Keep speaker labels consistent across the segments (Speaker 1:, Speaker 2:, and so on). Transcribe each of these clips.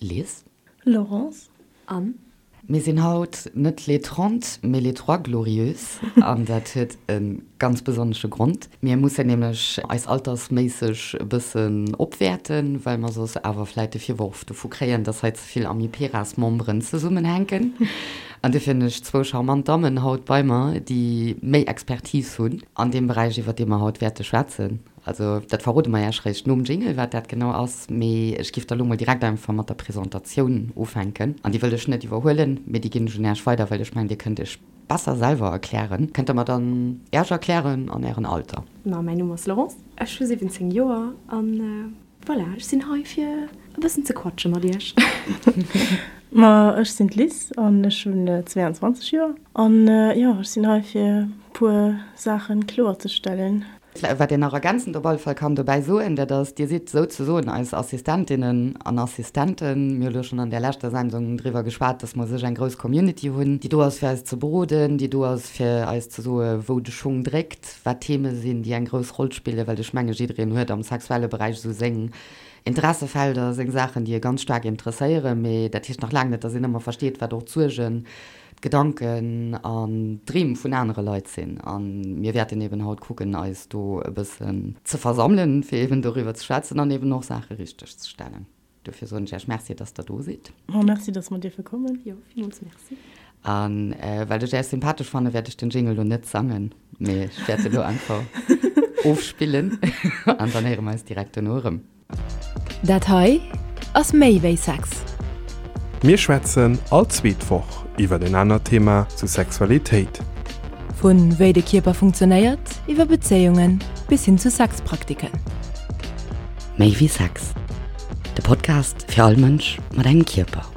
Speaker 1: Liz.
Speaker 2: Laurence.
Speaker 3: Anne.
Speaker 1: Mir sinn haut net les 30, mee les trois glorieuses an dat huet e ganz besonnesche Grond. Mir mussen nämlech eis altersméisseg e bëssen opwäerten, well mer soss awer vläit de Virworf dovu kréien, dass hei ze vill Amiperas-Memberen zesummenhänken. An dofir hunn ech zwou charmant Dammen haut bei mer, déi méi Expertise hunn an deem Beräich, iwwer dee mer haut wäerte schwätzen. Also dat verrode mer Iech réischt nom Jingle, wat dat genau ass. Mee ech giff da lo mol direkt einfach mat der Presentatioun ufänken. An déi wëll ech net iwwerhuelen, mee déi ginn ech un Iech weider, well ech mengen, Dir kënnt Iech besser selwer erklären. Kënnt Der mer dann Iech erklären an Ären Alter?
Speaker 3: Ma mäin Numm ass Laurence, ech hu 17 Joer an voilà, ech sinn hei fir e bëssen ze quatsche mat Iech.
Speaker 2: Ma ech sinn d'Liz an ech hunn 22 Joer an jo, ech sinn hei fir puer Saachen kloerzestellen.
Speaker 1: Wat een nach ergänzend op alle Fall kann dobäi soen, dat ass, Dir sidd souzesoen eis Assistentinnen an Assistenten. Mir hu lo schonn an där leschter Sendung driwwer geschwat, dass mer u sech eng grouss Community hunn, déi do ass, fir eis ze beroden, déi do ass, fir eis ze soe wou de Schung dréckt, wat Theme sinn, déi eng grouss Roll spillen, well ech menge jiddereen huet am sexuelle Beräich esou seng Interessefelder, seng Saachen, déi e ganz staark interesséieren. Mee dat heescht nach laang net, dass een ëmmer versteet, wat och d'Suergen, d'Gedanken an d'Dreem vun anere Leit sinn. A mir wäerten eben haut kucken, eis do e bëssen ze versammelen, fir eben doriwwer ze schwätzen an eben och Saache richteg ze stellen. Dofir soen ech Iech Merci, dass Der do sidd.
Speaker 2: Ma merci, dass mer dierfe kommen.
Speaker 3: Jo, villmools Merci.
Speaker 1: A well ech Iech sympathesch fannen, wäert ech den Jingle elo net sangen, mee ech wäert e lo einfach ofspillen an dann héiere mer eis direkt dono erëm.
Speaker 4: Dat hei ass méi wéi Sex.
Speaker 5: Mir schwätzen all zweet Woch iwwer en anert Thema zu Sexualitéit.
Speaker 4: Vu wéi de Kierper funktionéiert, iwwer Bezéiungen bis hin zu Sexpraktiken.
Speaker 1: Méi wéi Sex, de Podcast fir all Mënsch mat engem Kierper.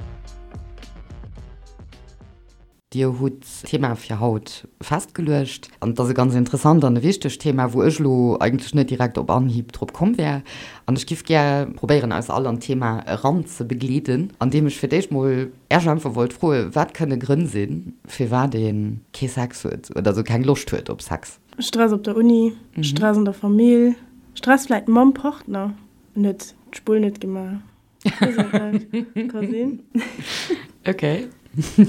Speaker 1: Dir hutt d'Thema fir haut festgeluecht. An et ass e ganz interessant an e wichtegt Thema, wou ech elo eigentlech net direkt op Anhieb drop komm wär. An ech giff gär probéieren, eis all an d'Thema eranzebegleeden, andeem ech fir d'éischt mol Äech einfach wollt froen, wat kënne Grënn sinn, firwat ee kee Sex huet oder esou keng Loscht huet op Sex?
Speaker 2: Stress op der Uni, Stress an der Famill, Stress vläit mam Partner, en huet d'Spull net gemaach. Ka sinn.
Speaker 1: Ok.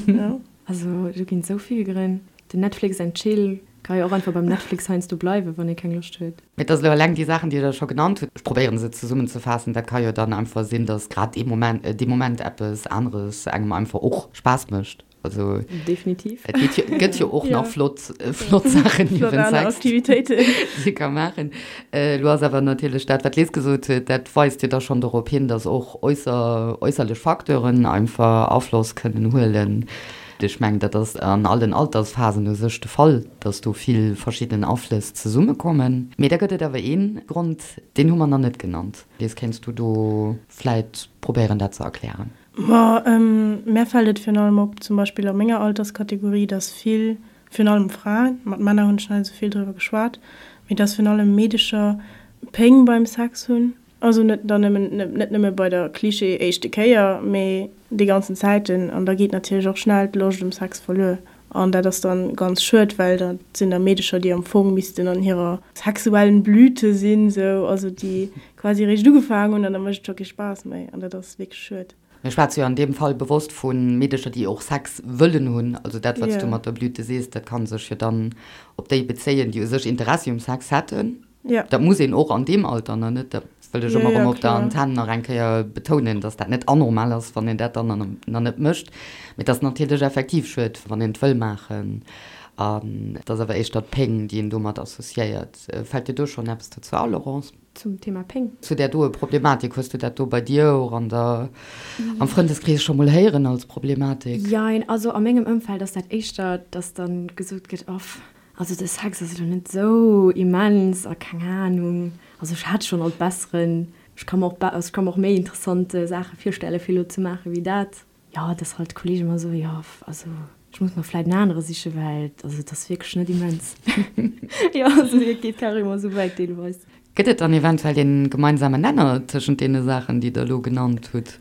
Speaker 3: Ja. Also do ginn esou vill Grënn. Den Netflix and Chill ka jo och einfach beim Netflix heiansdo bleiwen, wann ee keng Loscht huet.
Speaker 1: Mee et ass elo eleng déi Saachen, déi Der scho genannt hutt, ech probéieren se zesummenzefaassen, dat ka jo dann einfach sinn, datt grad dee Moment, dee Moment eppes aneres engem einfach och Spaass mécht. Also
Speaker 3: definitiv.
Speaker 1: Et geet jo, gëtt jo och nach flott, flott Saachen
Speaker 2: niewent Sex, Aktivitéiten.
Speaker 1: déi ee ka maachen. Elo ass awer natierlech dat, wat d'Liz gesot huet, dat weist jo da schonn dorop hin, datt och äusser, äusserlech Facteuren einfach Afloss kënnen huelen. Ech mengen, dat ass an allen Altersphasen u sech de Fall, datt do vill verschidden Aflëss zesummekommen. Mee da gëtt et awer ee Grond, deen hu mer nach net genannt. Liz, kéints du do vläit probéieren, dat ze erklären?
Speaker 2: Ma mär fält et virun allem op, zum Beispill a menger Alterskategorie, dass vill, virun allem Fraen, mat Männer hunn ech nach net esou vill driwwer geschwat, mee dass virun allem Meedecher Péng beim Sex hunn. Also net dann nëmmen, net nëmme bei der Klischee éischte Kéier, mee déi ganzen Zäiten. An da geet natierlech och schnell d'Loscht um Sex verluer. An dat ass dann ganz schued, well dat sinn da Meedecher, déi am Fong missten an hirer sexuellen Blüte sinn, sou, also déi quasi eréischt ugefaangen hunn an da mécht et scho kee Spaass méi an dat ass wierklech schued.
Speaker 1: Mir schwätze jo an deem Fall bewosst vu Meedecher, déi och Sex wëllen hunn. Also dat, wat s du mat der Blüte sees, dat ka sech jo dann op déi bezéien, déi u sech Interessi um Sex hätten.
Speaker 2: Ja.
Speaker 1: Dat muss een och an deem Alter nach net, dat wëll ech ëmmer erëm op der Antenn nach eng Kéier betounen, dass dat net anormal ass, wann een dat dann nach net mécht. Mee et ass natierlech effektiv schued, wann een et wëll maachen. An et ass awer éischter d'Péng, déi een domat associéiert. Fält dir do schonn eppes dozou a, Laurence?
Speaker 3: Zum Thema Péng?
Speaker 1: Zu där doe Problematik, hues du dat do bei dir och an der, am Frëndeskrees scho mol héieren als Problematik?
Speaker 3: Jein, also a mengem Ëmfeld ass dat éischter, dass dann gesot gëtt, Off, Also de Sex ass elo net esou immens a keng Ahnung, also ech hat schonn alt besseren, ech ka mer och also ech ka mer och méi interessant Saache virstelle fir elo ze maache wéi dat. Jo, dass halt d'Kollege mer soen, jo also ech muss mer vläit en anere siche well also et ass wierklech net immens. Jo, also et geet carrément esou wäit deelweis.
Speaker 1: Gëtt et dann eventuell een gemeinsamen Nenner tëschent deene Saachen déi der elo genannt hutt?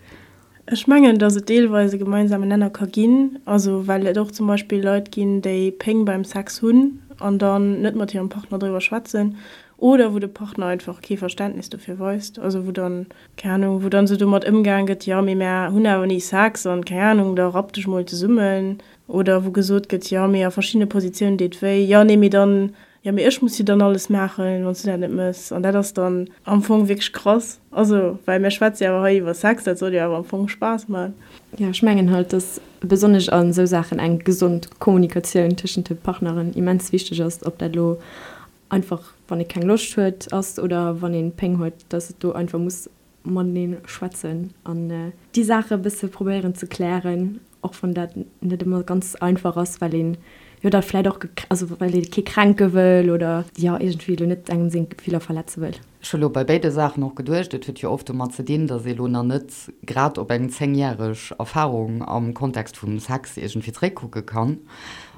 Speaker 2: Ech mengen, datt et deelweis e gemeinsamen Nenner ka ginn, also well et och zum Beispill Leit ginn, déi Péng beim Sex hunn an dann net mat hirem Partner driwwer schwätzen. Oder wou de Partner einfach kee Verständnis dofir weist, also wou dann, keng Ahnung, wou dann esou domat ëmgaang gëtt, jo mee mär hunn awer ni Sex an, keng Ahnung, da rapp dech mol zesummen. Oder wou gesot gëtt, jo mee a verschiddene Positiounen deet wéi, jo nee mee dann, jo mee ech muss jo dann alles maachen, wann s du dat net mëss. An dat ass dann am Fong wierklech krass, also well mär schwätze jo awer hei iwwer Sex, dat soll jo awer am Fong Spaass man.
Speaker 3: Jo, ech mengen halt, dass besonnesch a sou Saachen eng gesond Kommunikatioun tëschent de Partneren immens wichteg ass, ob dat elo einfach wann ee keng Loscht huet ass oder wann een Péng huet, dass et do einfach muss matenee schwätzen an déi Saache e bësse probéieren ze klären, och wann dat net ëmmer ganz einfach ass, well een jo da vläit och, also well ee kee kränke wëll oder jo iergendwéi elo net engem seng Gefiller verletze wëll.
Speaker 1: Ech hu lo bei béide Saachen och geduecht, et huet jo oft domat ze dinn, dass ee lo nach net grad op eng zéngjäreg Erfahrung am Kontext vum Sex iergendwéi zréckkucke kann.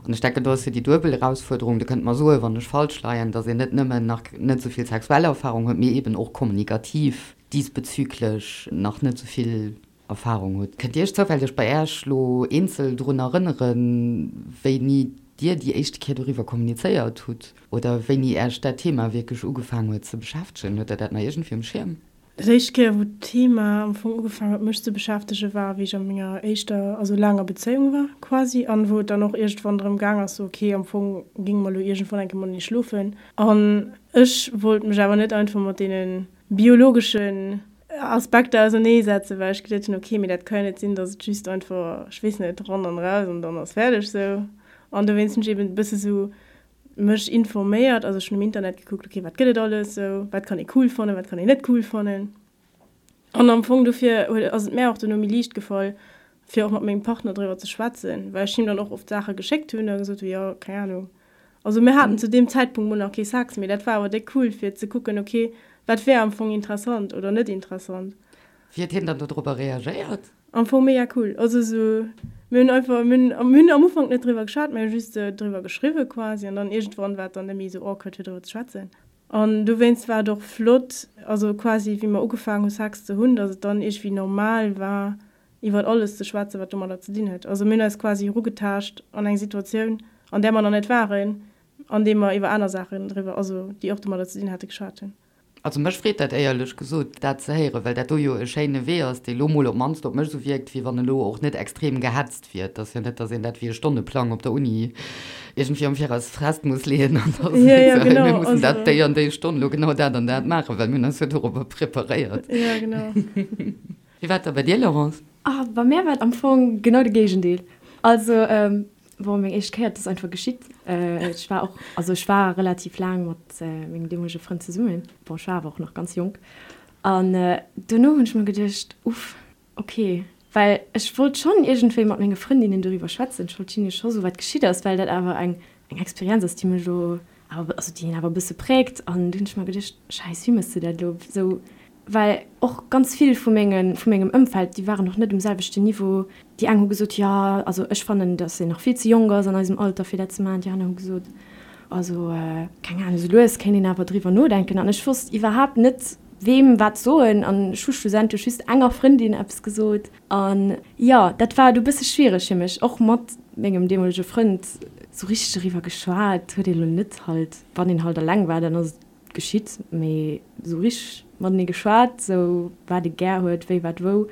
Speaker 1: An ech denken, do ass jo déi duebel Erausfuerderung, Dir kënnt mer soen, wann ech falsch leien, dass een net nëmmen nach net esou vill sexuell Erfahrung huet, mee eeben och kommunikativ diesbezüglech nach net esou vill Erfahrung hutt. Kënnt Dir Iech zoufälleg bei Äech lo eenzel drun erënneren, wéini Dir déi éischte Kéier doriwwer kommunizéiert hutt oder wéini Äech dat Thema wierklech ugefaang huet ze beschäftegen? Hutt Der dat nach iergendwéi um Schierm?
Speaker 2: Dat éischt Kéier, wou d'Thema am Fong ugefaang huet mech ze beschäftegen, war wéi ech a menger éischter, also laanger Bezéiung war quasi an wou et dann och iergendwann drëm gaang ass, sou ok, am Fong géinge mer elo iergendwann eng Kéier matenee schlofen an ech wollt mech awer net einfach mat deene biologeschen Aspekter ausernee setzen, well ech geduet hunn, ok, mee dat ka jo net sinn, datt et just einfach, ech weess net, ran an raus an dann ass fäerdeg sou. An dowéinst hunn ech eben e bësse sou mech informéiert, also ech hunn um Internet gekuckt, ok, wat gëtt et alles sou, wat kann ee cool fannen, wat kann een net cool fannen. An am Fong dofir huet, ass et mär och dono méi liicht gefall, fir och mat mengem Partner driwwer ze schwätzen, well ech him dann och oft Saache geschéckt hunn a gesot hunn, jo, keng Ahnung. Also mir haten zu deem Zäitpunkt mol nach kee Sex, mee dat war awer déck cool fir ze kucken, ok, wat wär am Fong interessant oder net interessant.
Speaker 1: Wéi huet hien dann dodropper reagéiert?
Speaker 2: Am Fong mega cool. Also sou, mir hunn einfach, mir hunn, mir hunn am Ufank net driwwer geschwat, mir hu just sou driwwer geschriwwe quasi an dann iergendwann war et dann net méi sou awkward fir driwwer ze schwätzen. An dowéinst war et och flott, also quasi wéi mer ugefaangen hu Sex ze hunn, datt et dann iergendwéi normal war iwwert alles ze schwätzen, wat domadder ze dinn huet. Also mir hunn eis quasi erugetaascht an eng Situatioun, an där mer nach net waren, andeem mer iwwer aner Saachen driwwer, also déi och domadder ze dinn hate, geschwat hunn.
Speaker 1: Also mech freet dat éierlech gesot, dat ze héieren, well dat do jo e schéine Wee ass, dee lo mol op d'mannst op mech esou wierkt, wéi wann e lo och net extrem gehetzt wier. Et ass jo net, datt een dat wéi e Stonneplang op der Uni iergendwéi am Viraus fest muss leeën an da seet, sou, mir mussen dat déi an déi Stonn lo genau dat an dat maachen, well mir hunn eis jo dorobber preparéiert.
Speaker 2: Jo, genau.
Speaker 1: Wéi war et da bei dir, Laurence?
Speaker 3: Ah, bei mär war et am Fong genau de Géigendeel. Also, bon, meng éischt Kéier, et ass einfach geschitt. Ech war och, also ech war relativ laang mat mengem deemolege Frënd zesummen. Bon, ech war awer och nach ganz jonk. An dono hunn ech mer geduecht, Uff, okay. Well ech wollt schonn iergendwéi mat menge Frëndinnen doriwwer schwätzen. Ech wollt hinne scho soen, wat geschitt ass, well dat awer eng, eng Experienz ass, déi mech elo awer, also déi een awer e bësse präägt. An du hunn ech mer geduecht, Schäiss, wéi méchs de dat elo? Esou Well och ganz vill vu menge, vu mengem Ëmfeld, déi waren och net um selwechten Niveau. Déi eng hu gesot, jo, also ech fannen, datt een nach vill ze jonk ass an eisem Alter fir dat ze maachen. Déi aner hu gesot, also keng Ahnung, esou lues kéint een awer driwwer nodenken. An ech wosst iwwerhaapt net, weem wat soen. An ech hu schlussendlech just enger Frëndin eppes gesot. An jo, dat war du e bësse schwiereg fir mech, och mat mengem deemolege Frënd. Sou richteg doriwwer geschwat huet ee lo net halt. Wann een halt eleng war, dann ass et geschitt, mee sou richteg matenee geschwat, sou wat ee gär huet, wéi wat wou,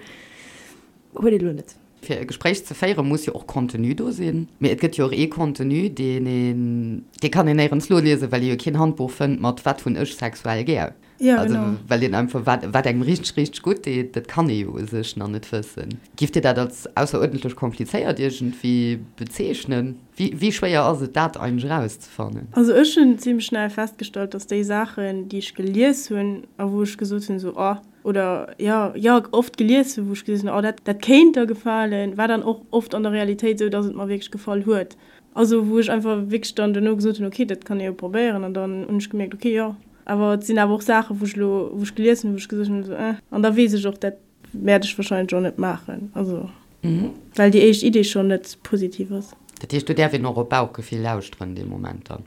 Speaker 3: huet ee lo net.
Speaker 1: Fir e Gespréich ze féieren, muss jo och Contenu do sinn. Mee et gëtt jo och ee Contenu, deen een, dee kann een néierens noliesen, well ee jo keen Handbuch fënnt mat wat hunn ech sexuell gär.
Speaker 2: Ja, genau.
Speaker 1: Also well een einfach, wat, wat engem richteg, richteg gutt deet, dat kann ee jo u sech nach net wëssen. Giff Dir dat als ausseruerdentlech komplizéiert iergendwéi bezeechnen? Wéi schwéier ass et dat eigentlech erauszefannen?
Speaker 2: Also ech hunn zimlech schnell festgestallt, dass déi Saachen, déi ech gelies hunn a wou ech gesot hunn esou oh, oder jo, jo oft gelies hunn, wou ech gesot hunn oh dat dat kéint der gefalen, war dann och oft an der Realitéit esou, dass et mer wierklech gefall huet. Also wou ech einfach wierklech dann duerno gesot hunn, okay dat kann ee jo probéieren an dann hunn ech gemierkt, okay jo. Awer et sinn awer och Saachen, wou ech elo, wou ech gelies hunn, wou ech gesot hunn esou eh an da weess ech och, dat Wäert ech wahrscheinlech och net maachen, also well déi éischt Idee schonn net positiv ass.
Speaker 1: Dat heescht, do däerf een och op Bauchgefill lauschteren dee Moment dann?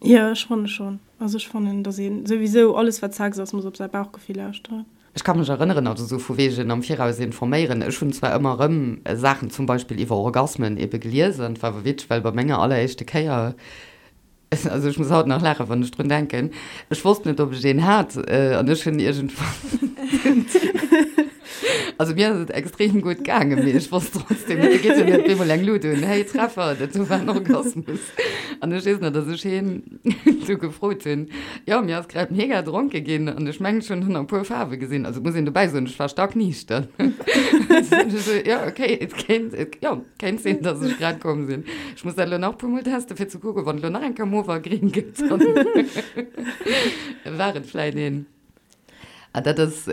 Speaker 2: Jo, ech fanne schonn. Also ech fannen, datt ee souwisou alles wat Sex ass, muss op säi Bauchgefill lauschteren.
Speaker 1: Ech ka mech erënneren, also sou vu wegen am Viraus informéieren, ech hunn zwar ëmmer erëm Saachen zum Beispill iwwer Orgasmen ebe gelies an et war awer witzeg, well bei menger alleréischte Kéier. Also ech muss haut nach laachen, wann ech drun denken. Ech wosst net, ob ech een hat an ech hunn iergendwann. Also mir ass et extrem gutt gaangen, mee ech wosst trotzdem net, du geet jo net op eemol eng Lut un, hey Treffer, dat do war en Orgasmus. An ech weess nach, dass ech hien du gefrot hunn, jo mir ass grad mega dronke ginn an ech mengen ech hunn nach e puer Faarwe gesinn. Also et muss een dobäi soen, ech war stackniichter. Jo okay, et kéint, jo. Kéint sinn, dass ech grad komm sinn. Ech muss dat elo nach e puermol testen, fir ze kucken, wann et elo nach eng Kéier mauve a gring gëtt, dann war et vläit een. Ah, dat ass,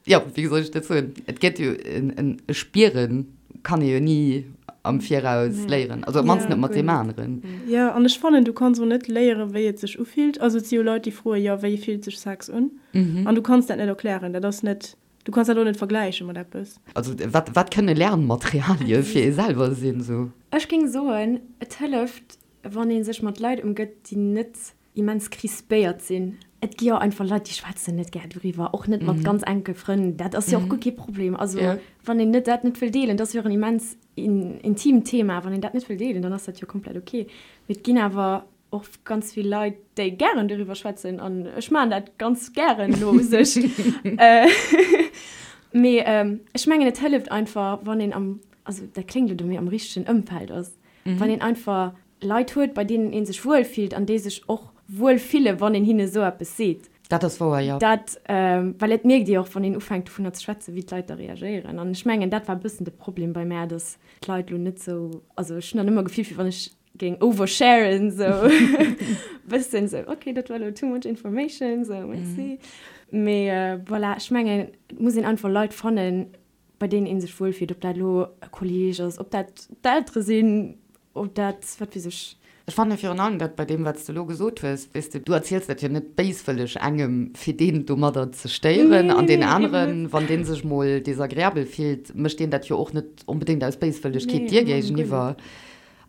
Speaker 1: jo, wéi soll ech dat soen? Et gëtt jo en e Spieren kann ee jo ni am Viraus léieren, also op d'mannst net mat deem aneren.
Speaker 2: Jo, an ech fannen, du kanns och net léieren, wéi et sech ufillt. Also et si jo Leit, déi froen, jo, wéi fillt sech Sex un? An du kanns dat net erklären. Dat ass net Du kanns dat och net vergläiche mat eppes.
Speaker 1: Also wat, wat kënne Lernmaterialie fir ee selwer sinn, sou?
Speaker 3: Ech géing soen, et hëlleft, wann ee sech mat Leit ëmgëtt, déi net immens crispéiert sinn. Et gi jo einfach Leit, déi schwätzen net gär doriwwer, och net mat ganz enke Frënn. Dat ass jo och guer kee Problem. Also wann een net dat net wëll deelen, dat ass jo och en immens intimt Thema, wann een dat net wëll deelen, dann ass dat jo komplett ok. Mee et ginn awer och ganz vill Leit, déi gären doriwwer schwätzen an ech maachen dat ganz gären elo u sech. Mee ech mengen, et hëlleft einfach, wann een am, also dat kléngt elo, mee am richtegen Ëmfeld ass, wann een einfach Leit huet, bei deenen ee sech wuel fillt an déi sech och wuel fille wann een hinne esou eppes seet.
Speaker 1: Dat ass wouer, jo.
Speaker 3: Dat, well et mierkt ee och, wann een ufänkt dovunner ze schwätzen, wéi d'Leit da reagéieren. An ech mengen, dat war e bëssen de Problem bei mär, datt d'Leit elo net esou, also ech hunn dann ëmmer gefillt, wéi wann ech géing oversharen sou bëssen sou ok dat war lo too much information sou merci mee voilà ech mengen et muss een einfach Leit fannen bei deenen een sech wuel fillt ob dat elo e Kolleg ass ob dat d'Eltere sinn ob dat wat weess ech.
Speaker 1: Ech fanne virun allem dat bei deem wat s de elo gesot hues, weess de, du erziels dat jo net béiswëlleg engem fir deen domadder ze stéieren an deen aneren wann dee sech mol desagreabel fillt mécht deen dat jo och net onbedéngt aus Béiswëllegkeet dir géigeniwwer.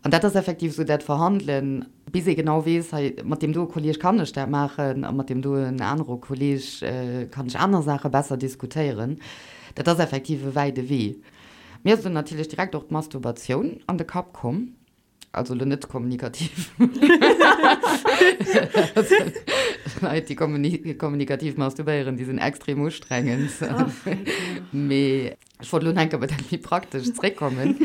Speaker 1: An dat ass effektiv esou dat Verhandelen, bis ee genau weess, hei mat deem doe Kolleeg kann ech dat maachen a mat deem doen anere Kolleeg kann ech aner Saache besser diskutéieren. Dat ass effektiv e wäide Wee. Mir ass do natierlech direkt och d'Masturbatioun an de Kapp komm, also elo net kommunikativ. Leit, déi kommunikativ masturbéieren, déi sinn extrem ustrengend. Mee Ech wollt elo nach eng Kéier op dat méi Praktescht zréckkommen.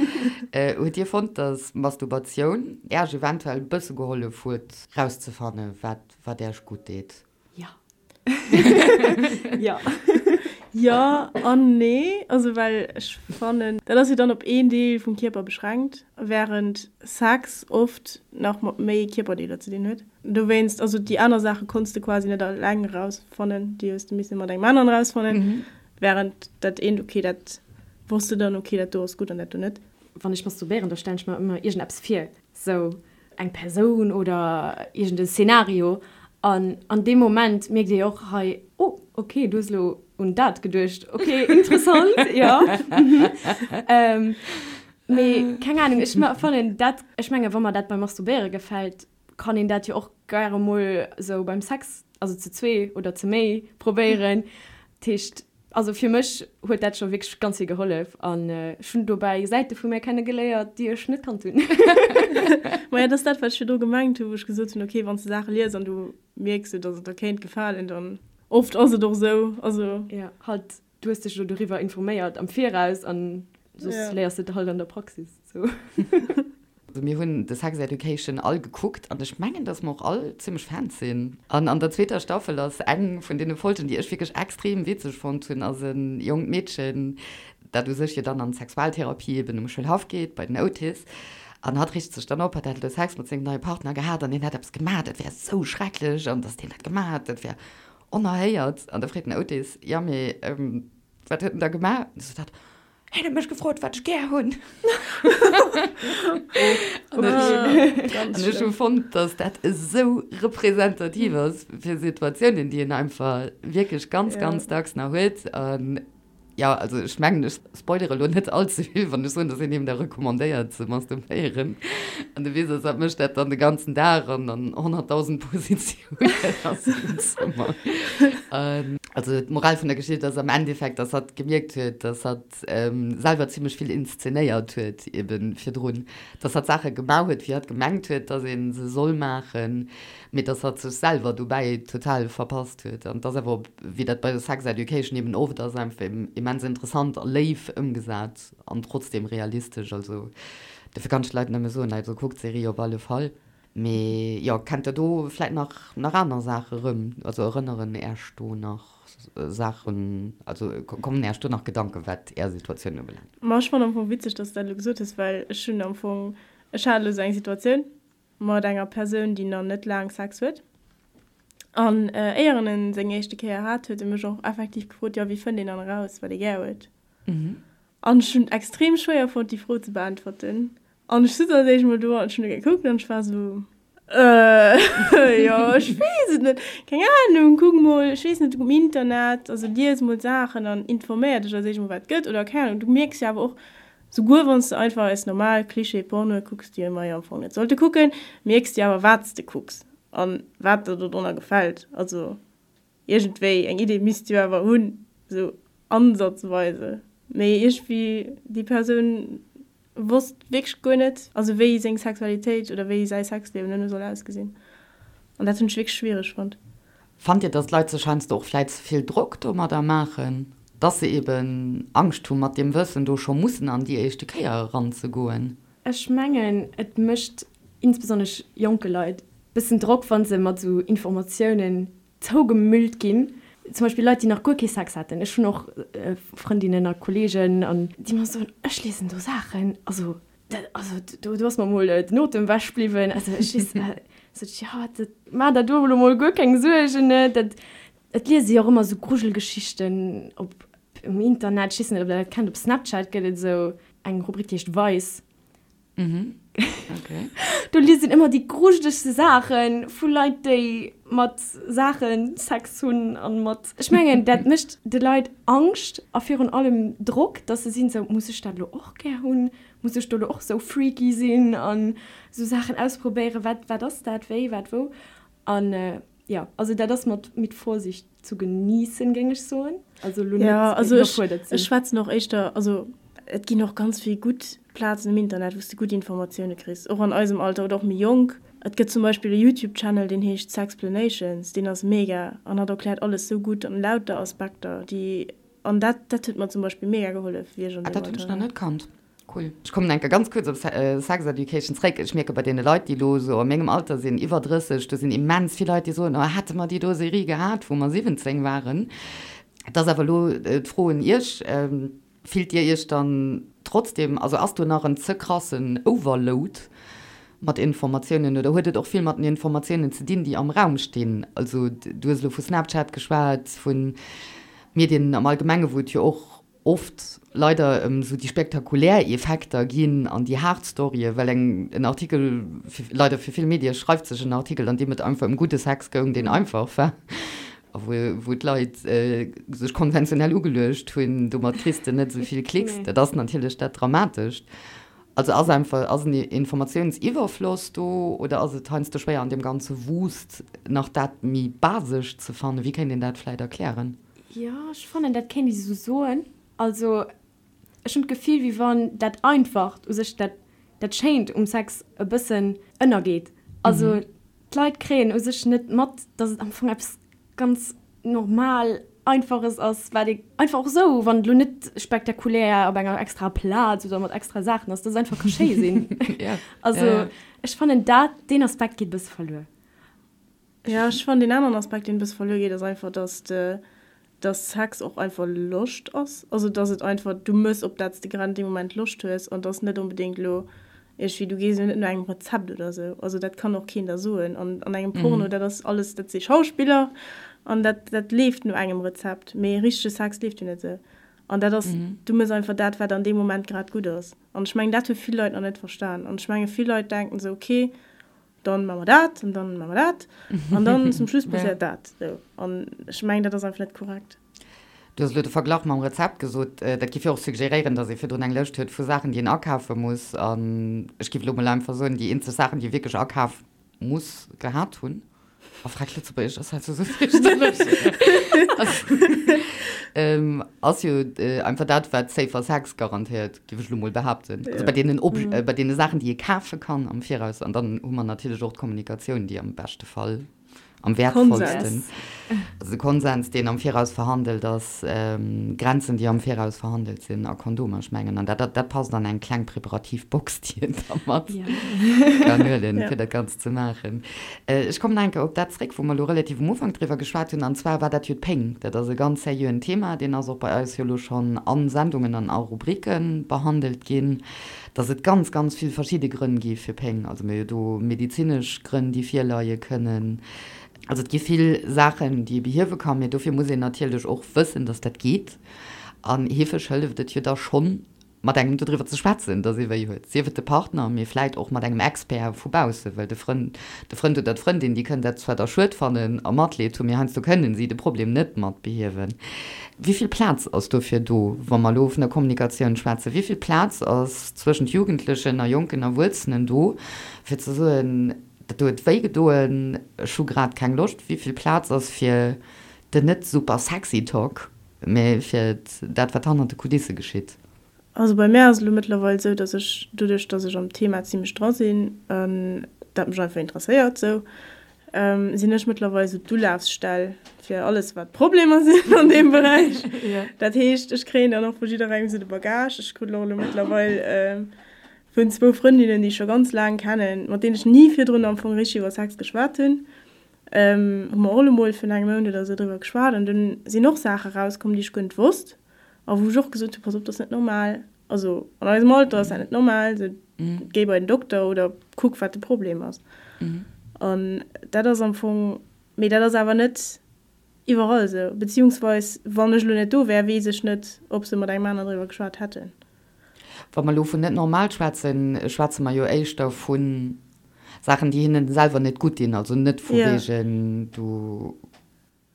Speaker 1: Hutt Dir fonnt, dass Masturbatioun Äerch eventuell e bësse gehollef huet, rauszefannen, wat, wat Äerch gutt deet?
Speaker 3: Jo. Jo.
Speaker 2: Jo an nee. Also well ech fannen, dat ass jo dann op een Deel vum Kierper beschränkt, während Sex oft nach mat méi Kierperdeeler ze dinn huet. Dowéinst, also déi aner Saache konns de quasi net eleng erausfannen, déi hues de misse mat engem aneren erausfannen. Während dat eent, ok, dat wosst de dann, ok, dat do ass gutt an dat do net.
Speaker 3: Wann ech masturbéieren, da stellen ech mer ëmmer iergendeppes vir, sou eng Persoun oder iergend e Szenario. An an deem Moment mierkt ee jo och hei, oh, ok, du hues elo un dat geduecht, ok, interessant, jo, mhm. Mee keng Anung, ech fannen dat, ech menge wa mer dat beim Masturbéiere gefält, kann een dat jo och gäre mol sou beim Sex, also zu zwee oder zu méi probéieren. Dat heescht, also fir mech huet dat scho wierklech ganz vill gehollef an ech hunn dobäi Säite vu mär kenne geléiert, déi ech net kannt hunn.
Speaker 2: Maja, dat ass dat, wat ech virdru gemengt hunn, wou ech gesot hunn, okay, wann s de Saache lies an du mierks sou, datt et der kéint gefalen, dann oft ass et och sou, also.
Speaker 3: Jo, halt Du hues dech elo doriwwer informéiert am Viraus an soss léiers de et halt an der Praxis. Sou.
Speaker 1: Also mir hunn The Sex Education all gekuckt an ech mengen, dass mer och all zimmlech Fans sinn. An an der zweeter Staffel ass eng vun deene Folgen, déi ech wierklech extrem witzeg fonnt hunn, ass e jonkt Meedchen, dat u sech jo dann an d'Sexualtherapie eben um Schoulhaff geet bei den Otis an hatt richt sech dann op, hatt hätt elo Sex mat sengem neie Partner gehat an deen hätt eppes gemaach, dat wär esou schrecklech an dass deen dat gemaach hätt, dat wär Onerhéiert. An da freet den Otis, Jo, mee wat huet en da gemaach? An du sot hatt, Hien huet mech gefrot, wat ech gär hunn. An ech hu fonnt, datt dat esou representativ ass fir Situatiounen, déi een einfach wierklech ganz, ganz dacks nach huet. An Jo, also ech mengen, ech spoilere lo net all ze vill, wann ech soen, dass een him da recommandéiert ze masturbéieren. An de Witz ass, hatt mécht dat dann de ganzen Dag an an 100.000 Positiounen a sengem Zëmmer. Also d'Moral vun der Geschicht ass am Endeffekt, dass hatt gemierkt huet, dass hatt selwer zimmlech vill inszenéiert huet eben virdrun, dass hatt Saache gemaach huet, wéi hatt gemengt huet, dass ee se soll maachen, mee dass hatt sech selwer dobäi total verpasst huet. An et ass awer, wéi dat bei Sex Education eben oft ass, einfach immens interessant a léif ëmgesat an trotzdem realistesch. Also dofir kann ech de Leit nëmme soen, also kuckt d'Serie op alle Fall. Mee jo, kennt der do vläit nach nach aner Saache rëm? Also erënneren Äech do nach Saachen, also kommen Äech do nach Gedanken, wat Är Situatioun ubelaangt?
Speaker 2: Ma ech fannen am Fong witzeg, dass s de dat elo gesot hues, well ech hunn am Fong, ech hat elo esou eng Situatioun mat enger Persoun, déi nach net laang Sex huet. An éier en en seng éischte Kéier hat, huet e mech och effektiv gefrot, jo, wéi fënnt een dann eraus, wat ee gär huet? An ech hunn et extrem schwéier fonnt, déi Fro ze beäntwerten. An ech sutz als éischt mol do an ech hunn e gekuckt an ech war esou, Äh, jo, ech weess et net, keng Ahnung, kuck mol, ech weess net, um Internet, also lies mol Saachen an informéier dech als éischt mol, wat et gëtt oder keng Ahnung. Du mierks jo awer och, souguer wann s de einfach eis normal Klischee-Pornoe kucks, déi mer jo am Fong net sollte kucken, mierks de jo awer, wat s de kucks an wat der dodrunner gefält. Also. Iergendwéi eng Idee misst jo awer hunn, esou ansatzweise. Mee iergendwéi déi Persoun wosst wierklech guer net, also wéi seng Sexualitéit oder wéi säi Sexliewen duerno soll ausgesinn. An dat hunn ech wierklech schwiereg fonnt.
Speaker 1: Fannt Dir, dass d'Leit sech heiansdo och vläit ze vill Drock domadder maachen, dass se eben Angscht hu mat deem Wëssen do scho mussen an déi éischte Kéier eranzegoen?
Speaker 3: Ech mengen, et mécht insbesonnesch jonke Leit bëssen Drock, wa se mat esou Informatiounen zougemüllt ginn. Zum Beispill Leit, déi nach guer kee Sex haten. Ech hunn och Frëndinnen a Kolleegen, an déi mer soen, ech liesen do Saachen, also dat, also do, do ass mer mol den Otem ewech bliwwen. Also ech weess, sot ech, jo, dat, maach der do elo mol guer keng Suergen, ne, dat, et liese jo och ëmmer esou Grujelgeschichten op um Internet. Ech weess net, ob der dat kennt, op Snapchat gëtt et esou eng Rubrik, déi heescht Vice.
Speaker 1: Mhm. Okay.
Speaker 3: Do liest een ëmmer déi grujelegste Saache vu Leit, déi mat Saache Sex hunn an mat. Ech mengen, dat mécht de Leit Angscht a virun allem Drock, dass se sinn esou, Muss ech dat elo och gär hunn? Muss ech do elo och esou freaky sinn an esou Saachen ausprobéieren? Wat, wat ass dat? Wéi, wat, wou? An jo, also dat ass mat mit Vorsicht zu genießen, géing ech soen.
Speaker 2: Also elo net ja, also iwwerfuerdert sinn. Ech schwätzen och éischter, also et ginn och ganz vill gutt Plazen um Internet, wou s de gutt Informatioune kriss, och an eisem Alter oder och méi jonk. Et gëtt zum Beispill e YouTube-Channel, deen heescht Sexplanations, deen ass mega an hat erkläert alles sou gutt an lauter Aspekter, déi, an dat, dat huet mer zum Beispill mega gehollef, wéi ech an
Speaker 1: Ah, deem dat hunn ech Alter nach war. net kannt. Cool. Ech kommen enke ganz kuerz op Sex Education zréck. Ech mierke bei deene Leit, déi elo esou a mengem Alter sinn, iwwer 30, do sinn immens vill Leit, déi soen, oh hätte mer déi do Serie gehat, wou mer 17 waren. Et ass awer elo d'Fro un Iech, Fillt Dir Iech dann trotzdem, also ass do nach en ze krassen Overload mat Informatiounen oder huet et och vill mat den Informatiounen ze dinn, déi am Raum stinn? Also du hues elo vu Snapchat geschwat, vu Medien am Allgemenge wou et jo och oft leider ëm esou déi spektakulär Effekter ginn an déi haart Storye, well eng en Artikel, leider fir vill Medie schreift sech en Artikel, an deem et einfach ëm gudde Sex goung, deen einfach war a wou wou d'Leit sech konventionell ugeluecht hunn, domat kriss de net esou vill Klicks. Dat ass natierlech dat Dramatescht. Also ass einfach, ass en Informatiounsiwwerfloss do oder ass et heiansdo schwéier an deem ganze Wust nach dat méi Basescht ze fannen? Wéi kéint een dat vläit erklären?
Speaker 3: Jo, ech fannen, dat kéint ee sou soen. Also, ech hunn d'Gefill, wéi wann dat Einfacht u sech, dat, dat Schéint um Sex e bëssen ënnergeet. Also, d'Leit kréien u sech net mat, dass et am Fong eppes ganz normal Einfaches ass, wat ee einfach och esou, wann et elo net spektakulär op enger extraer Plaz oder mat extra Saachen ass, dass et einfach ka schéi sinn. Also, ech fannen dat, deen Aspekt geet e bësse verluer.
Speaker 2: Jo, ech fannen deen aneren Aspekt, deen e bësse verluer geet, ass einfach, dass de, dass Sex och einfach Loscht ass. Also dass et einfach, du mëss op dat s de grad an deem Moment Loscht hues an dass net onbedéngt elo iergendwéi, du gees jo net no engem Rezept oder esou. Also dat kann och keen der soen. An an engem Porno, dat ass alles, dat si Schauspiller an dat, dat leeft no engem Rezept. Mee richtege Sex leeft jo net esou. An dat ass, du mëss einfach dat, wat an deem Moment grad gutt ass. An ech mengen, dat hu vill Leit nach net verstan. An ech menge vill Leit denken esou, okay, dann maache mer dat an dann maache mer dat an dann zum Schluss passéiert dat. Sou. An ech mengen, dat ass einfach net korrekt.
Speaker 1: Du hues elo de Verglach mam Rezept gesot. Dat giff jo och suggeréieren, datt ee virdrun eng Lëscht huet vu Saachen, déi een akafe muss. An ech giff elo mol einfach soen, déi eenzeg Saachen, déi ee wierklech akaf muss gehat hunn. Oh, frag Lëtzebuergesch ass halt sou fierchterlech. Ass jo einfach dat, wat safer Sex garantéiert, géif ech elo mol behaapten. Also bei deenen Ob bei deene Saachen, déi ee kafe kann am Viraus. An dann hu mer natierlech och d'Kommunikatioun, déi am beschte Fall am wäertvollsten, also de Konsens, deen am Viraus verhandelt ass, Grenzen, déi am Viraus verhandelt sinn a Kondomer, ech mengen, an dat, dat passt an eng kleng preparativ Box, déi een da mat kann huelen, fir dat Ganzt ze maachen. Ech kommen nach eng Kéier op dat zréck, wou mer elo relativ um Ufank driwwer geschwat hunn, an zwar war dat jo d'Péng. Dat ass e ganz seriöen Thema, deen ass och bei eis jo elo schonn a Sendungen an a Rubrike behandelt ginn. Dass et ganz, ganz vill verschidde Grënn gi fir Péng. Also mir hu jo do medezinesch Grënn, déi virleie kënnen. Also et gi vill Saachen, déi ee behiewe kann, mee dofir muss een natierlech och wëssen, dass dat geet. An heefeg hëlleft et jo da schonn, mat engem dodriwwer ze schwätzen, dass ee wéi huet, sief et de Partner, mee vläit och mat engem Expert vu bausse, well de Frënd, de Frënd oder d'Frëndin, déi kënnen dat zwar da schued fannen a Matleed hunn, mee heiansdo kënnen si de Problem net mat behiewen. Wéi vill Plaz ass dofir do, wa mer elo vun der Kommunikatioun schwätzen? Wéi vill Plaz ass zwëschent Jugendlechen a jonken Erwuessenen do, fir ze soen, dat do huet wéi gedoen, ech hu grad keng Loscht? Wéi vill Plaz ass fir den net super sexy Talk, mä fir dat, wat hannert de Kulisse geschitt?
Speaker 2: Also bei mär ass et elo mëttlerweil esou, dass ech doduerch, dass ech am Thema zimlech dra sinn an dat mech einfach interesséiert esou, sinn ech mëttlerweil esou d'Ulafsstell fir alles wat Problemer sinn an deem Beräich. Dat heescht, ech kréien dann och vu jidderengem esou de Bagage. Ech krut och elo mëttlerweil vun zwou Frëndinnen, déi ech scho ganz laang kennen, mat deenen ech ni virdrun am Fong richteg iwwer Sex geschwat hunn, hu mer och elo mol virun engem Mount oder esou driwwer geschwat an dunn sinn och Saache rauskomm, déi ech guer net wosst. A wou ech och gesot hunn, pass op, dat ass net normal, also an eisem Alter ass dat net normal, sou géi bei den Dokter oder kuck wat de Problem ass. An dat ass am Fong, mee dat ass awer net iwwerall esou, beziehungsweis wann ech elo net do wär, weess ech net, ob se mat engem aner driwwer geschwat hätten.
Speaker 1: Wa mer elo vun net normal schwätzen, schwätze mer jo éischter vu Saachen, déi hinnen selwer net gutt dinn, also net vu wegen du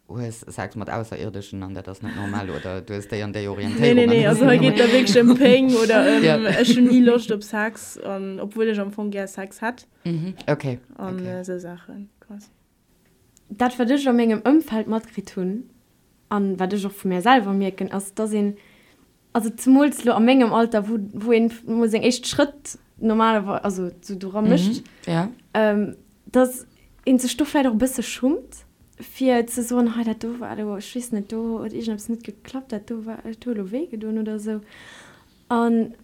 Speaker 1: hues Sex mat Ausserierdeschen an dat ass net normal oder du hues déi an déi Orientéierung.
Speaker 2: Nee, nee, nee, also hei geet et da wierklech ëm Péng oder ëm ech hunn ni Loscht op Sex an obwuel ech am Fong gär Sex hätt.
Speaker 1: Mhm, okay.
Speaker 2: An esou Saachen quasi.
Speaker 3: Dat wat ech a mengem Ëmfeld matkritt hunn an wat ech och vu mär selwer mierken, ass dass een Also zemools lo a mengem Alter, wou, wou een mol seng éischt Schrëtt normalerweis, also sou dora mécht, dass een sech do vläicht och e bësse schummt, fir ze soen, hei dat do war elo, ech weess net, do huet iergendeppes net geklappt, dat do war, dat huet elo wéi gedoen oder esou. An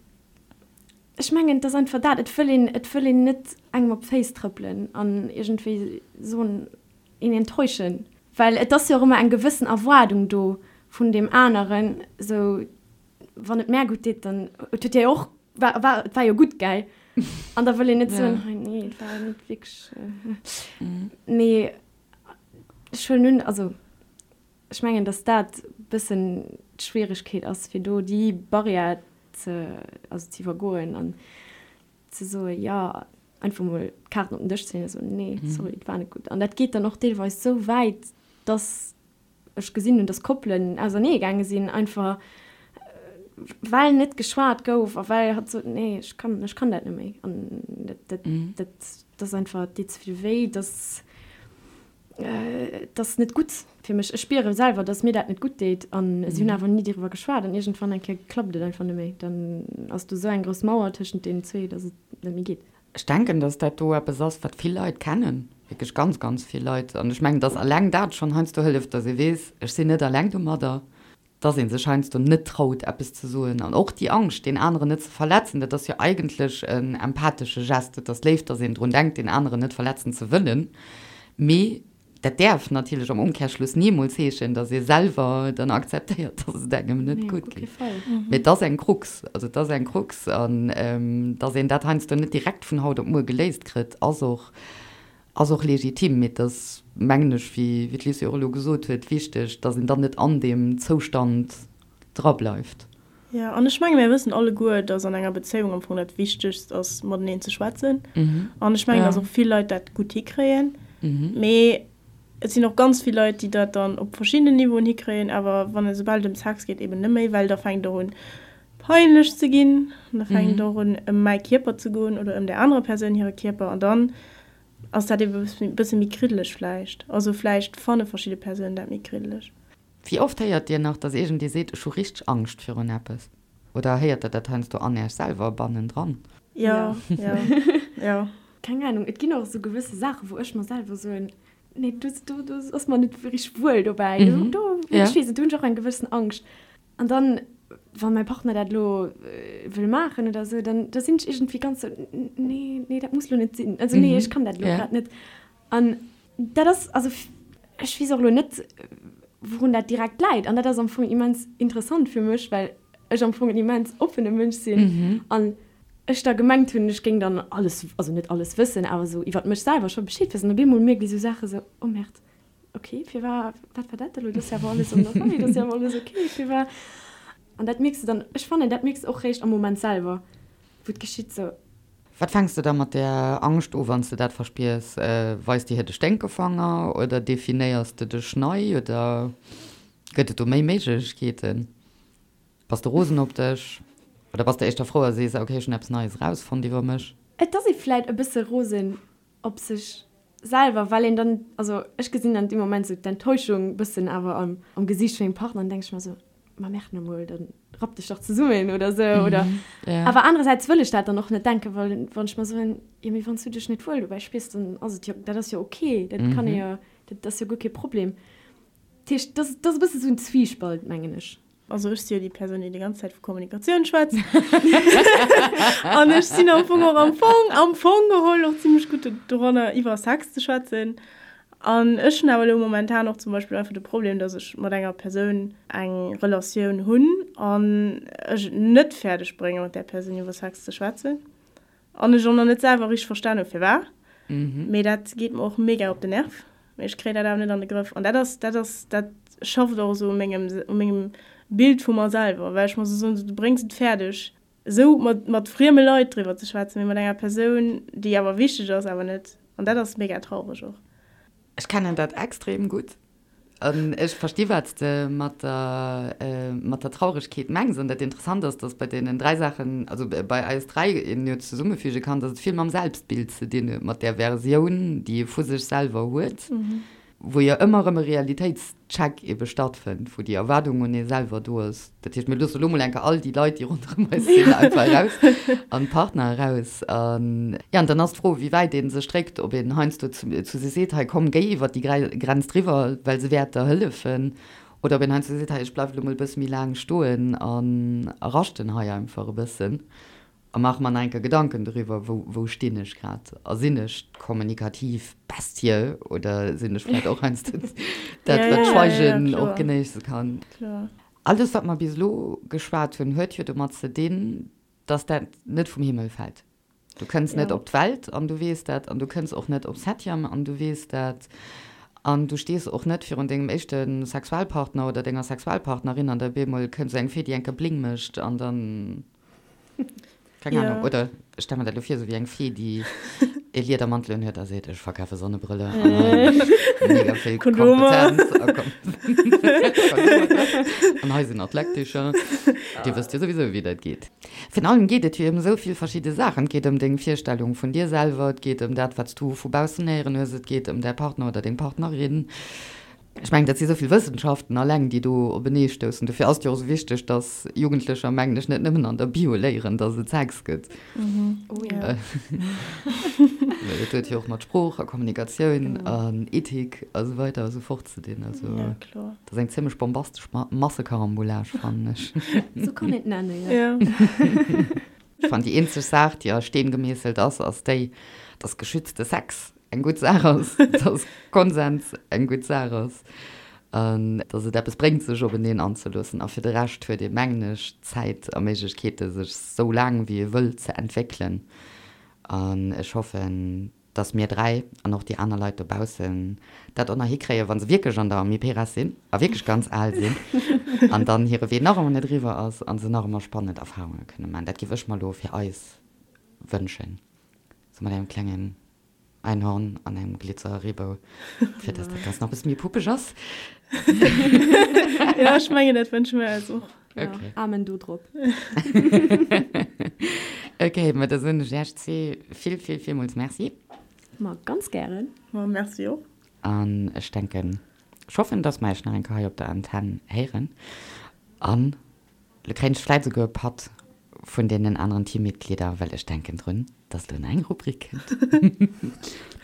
Speaker 3: ech mengen, et ass einfach dat, et wëll een, et wëll een net engem op d'Féiss trëppelen an iergendwéi soen, een enttäuschen, well et ass jo och ëmmer eng gewëssen Erwaardung do vun deem aneren, sou wann et mär gutt deet, dann et huet dir jo och, war, war, et war jo gutt, gell? An da wëll een net soen, hei nee, et war net wierklech, mee ech huelen un, also ech mengen, datt dat e bëssen d'Schwieregkeet ass, fir do déi Barrière ze, also ze iwwergoen an ze soen, jo, einfach mol d'Kaarten op den Dësch ze leeën a soen, nee, sorry, et war net gutt. An dat geet dann och deelweis esou wäit, dass ech gesinn hunn, dass Koppelen ausernee gaange sinn, einfach well net geschwat gouf a well hatt sot, nee, ech kann, ech kann dat net méi. An dat, dat, dat, dat ass einfach, et deet ze vill wéi, dass. Et ass net gutt fir mech. Ech spiere selwer, dass mir dat net gutt deet. An si hunn awer ni doriwwer geschwat. An iergendwann eng Kéier klappt et einfach net méi. Dann ass do esou eng grouss Mauer tëschent deenen zwee, dass et net méi geet.
Speaker 1: Ech denken, dass dat do eppes ass, wat vill Leit kennen, wierklech ganz, ganz vill Leit. An ech mengen, dass eleng dat schonn heiansdo hëlleft, dass ee weess, ech sinn net eleng domadder. dass ee sech heiansdo net traut, eppes ze soen. An och déi Angscht, deen aneren net ze verletzen, dat ass jo eigentlech en empathesche Gest. Et ass léif, dass een drun denkt, deen aneren net verletzen ze wëllen. Mee dat däerf natierlech am Umkehrschluss nimools heeschen, dass ee selwer dann akzeptéiert, dass et engem net gutt geet. Mee et ass eng Krux. Also et ass eng Krux. An dass een dat heiansdo net direkt vun haut op muer geléist kritt, ass och Ass och legitim, mee et ass, mengen ech, wéi d'Lucie och elo gesot huet, wichteg, dass een dann net an deem Zoustand drableift.
Speaker 2: Jo, an ech menge mir wëssen alleguer, dass an enger Bezéiung am Fong dat Wichtegst ass, mateneen ze schwätzen. An ech mengen, dass och vill Leit dat gutt hikréien. Mee et sinn och ganz vill Leit, déi dat dann op verschiddenen Niveauen hikréien, awer wann et, esoubal et ëm Sex geet, eben net méi, well da fänkt et och un, peinlech ze ginn. An da fänkt et och un, ëm mäi Kierper ze goen oder ëm där anerer Persoun hire Kierper. An dann. ass dat ebe e bësse méi kriddeleg vläicht. Also vläicht fanne verschidde Persounen dat méi kriddeleg.
Speaker 1: Wéi oft héiert Dir nach, dass iergendee seet, ech hu richteg Angscht virun eppes? Oder héiert Der dat heiansdo an Iech selwer bannendran?
Speaker 2: Jo, jo, jo.
Speaker 3: Keng Ahnung, et ginn och esou gewësse Saachen, wou ech mer selwer soen, nee, do, do, do ass mer net richteg wuel dobäi. Do, ech weess net, do hunn ech och eng gewëssen Angscht. An dann, wa mäi Partner dat elo wëll maachen oder esou, dann da sinn ech iergendwéi ganz sou, nee, nee, dat muss elo net sinn. Also nee, ech kann dat elo grad net. An dat ass, also ech weess och elo net, wourun dat direkt läit. An dat ass am Fong immens interessant fir mech, well ech am Fong en immens oppene Mënsch sinn an ech da gemengt hunn, ech géing dann alles, also net alles wëssen, awer esou iwwert mech selwer scho Bescheed wëssen. Op eemol mierkt ee sou Saache sou, oh Merde, Ok, firwar, wat war dat elo? Dat ass jo awer alles an der Rei, dat ass jo awer alles ok, firwar? An dat mierks de dann, ech fannen, dat mierks de och réischt am Moment selwer, wou et geschitt sou.
Speaker 1: Wat fänks de da mat där Angscht u, wann s de dat verspiers? Weis de hir de Sténkefanger oder definéiers de dech nei oder gëtt et do méi Méiglechkeeten? Bass de rosen op dech oder bass de éischter frou a sees, ok, ech hunn eppes Neies erausfonnt iwwer mech?
Speaker 3: Et ass ee vläit e bësse rosen op sech selwer, well een dann, also ech gesinn dann dee Moment sou d'Enttäuschung bëssen awer am am Gesiicht vun mengem Partner an denke ech mer sou, ma merde nomol, dann rapp dech dach zesummen oder sou oder awer anerersäits wëll ech dat dann och net denken, well wann ech mer soen, jo mee wann s du dech net wuel dobäi spiers, dann ass et jo, dat ass jo ok, dat kann ee jo, dat ass jo guer kee Problem. Dat heescht, dat ass e bësse sou en Zwiespalt, mengen ech.
Speaker 2: Also ech si jo déi Persoun, déi déi ganz Zäit vu Kommunikatioun schwätzt. An ech sinn am Fong och am Fong, am Fong geholl och zimmlech gutt doranner, iwwer Sex ze schwätzen. An ech hunn awer elo momentan och zum Beispill einfach de Problem, dass ech mat enger Persoun eng Relatioun hunn an ech et net fäerdeg brénge mat där Persoun iwwer Sex ze schwätzen. An ech och nach net selwer richteg verstan hu firwat. Mee dat geet mer och mega op den Nerv. Mee ech kréien dat awer net an de Grëff. An dat ass, dat ass, dat schafft och esou u mengem, u mengem Bild vu mer selwer, well ech mer esou soen, du bréngs et fäerdeg, esou mat, mat frieme Leit driwwer ze schwätzen, mee mat enger Persoun, déi awer wichteg ass, awer net. An dat ass mega traureg och.
Speaker 1: Ech kennen dat extrem gutt. An ech versti wat s de mat der, mat der Trauregkeet mengs. An dat Interessant ass, datt bei deenen 3 Saachen, also bei eis 3, een jo zesummefüge kann, datt et vill mam Selbstbild ze dinn huet, mat där Versioun, déi ee vu sech selwer huet, wou jo ëmmer erëm e Realitéitscheck ebe stattfënnt, wou déi Erwaardung un ee selwer do ass. Dat heescht, mir loosse elo mol eng Kéier all déi Leit, déi ronderëm eis sinn, einfach eraus an d'Partner eraus. An, jo, an dann ass d'Fro, wéi wäit ee sech dréckt, ob een heiansdo zu zu se seet, hei komm, géi iwwert déi Grenz driwwer, well se wäert der hëllefen, oder ob een heiansdo seet, hei ech bleiwen elo mol e bësse méi laang stoen an a raschten hei einfach e bëssen. A maache mer nach eng Kéier Gedanken doriwwer, wou, wou stinn ech grad? A sinn ech d'kommunikativ Bestie oder sinn ech vläicht och heiansdo dat, wat d'Schweigen och genéisse kann? Alles, wat mer bis elo geschwat hunn, huet jo domat ze dinn, dass dat net vum Himmel fält. Du kënns net op d'Welt an du weess dat, an du kënns och net op Septième an du weess dat, an du stees och net virun dengem éischte Sexualpartner oder denger Sexualpartnerin an da op eemol kënnt esou eng Fee, déi eng Kéier Bling mécht an dann. Keng ja. Ahnung. Oder ech stelle mir dat lo vir, sou wéi eng Fee, déi e Liedermantel unhuet a seet, ech verkafe Sonnebrëlle an mega vill Kompetenz. An hei sinn nach d'Leckticher. Dir wësst jo souwisou, wéi dat geet. Virun allem geet et jo ëm esou vill verschidde Saachen. Et geet ëm deng Virstellung vun dir selwer, et geet ëm dat, wat s du vu baussen héieren hues, et geet ëm däi Partner oder deng Partnerin. Ech mengen, dat si esou vill Wëssenschaften alleng, déi do openeestoussen. Dofir ass et jo och esou wichteg, dass Jugendlecher, mengen ech, net nëmmen an der Bio léieren, dass et Sex gëtt.
Speaker 2: Oh ja.
Speaker 1: Well dat huet jo och mat Sprooch a Kommunikatioun an Ethik a sou weider a sou fort ze dinn. Also,
Speaker 2: Ja, kloer.
Speaker 1: dat ass eng zimmlech bombastesch Massekarambolage, fannen ech.
Speaker 3: Sou kann een et nennen, jo.
Speaker 2: Ja.
Speaker 1: Ech fannen, déi eenzeg Saach, déi a Steen gemeesselt ass, ass déi, dass geschützte Sex eng gutt Saach ass, dass Konsens eng gutt Saach ass an dass et eppes bréngt, sech openeen anzeloossen. A fir de Rescht huet ee, mengen ech, Zäit a Méiglechkeete sech sou laang wéi ee wëll ze entwéckelen. An ech hoffen, dass mir 3 an och déi aner Leit dobaussen dat och nach hikréien, wa se wierklech an der Amiperas sinn a wierklech ganz al sinn an dann hire Wee nach ëmmer net eriwwer ass a se nach ëmmer spannend Erfarunge kënne maachen. Dat géif ech mer elo fir eis wënschen, sou mat engem klengen Einhorn an engem Glitzer-Reebou, fir dass dat Ganzt nach e bësse méi puppeg ass.
Speaker 2: Jo, ech mengen, dat wënsche mir eis och.
Speaker 3: Okay. Amen do drop.
Speaker 1: Okay, ma da soen ech Iech zwee vill, vill, villmools Merci.
Speaker 3: Ma ganz gären.
Speaker 2: Ma merci och.
Speaker 1: An ech denken, ech hoffen, dass mer Iech nach eng Kéier hei op der Antenn héieren. An lo kréien ech vläit esouguer e Patt vun deenen aneren Teammitglieder, well ech denken drun, dass elo nach eng Rubrik kënnt.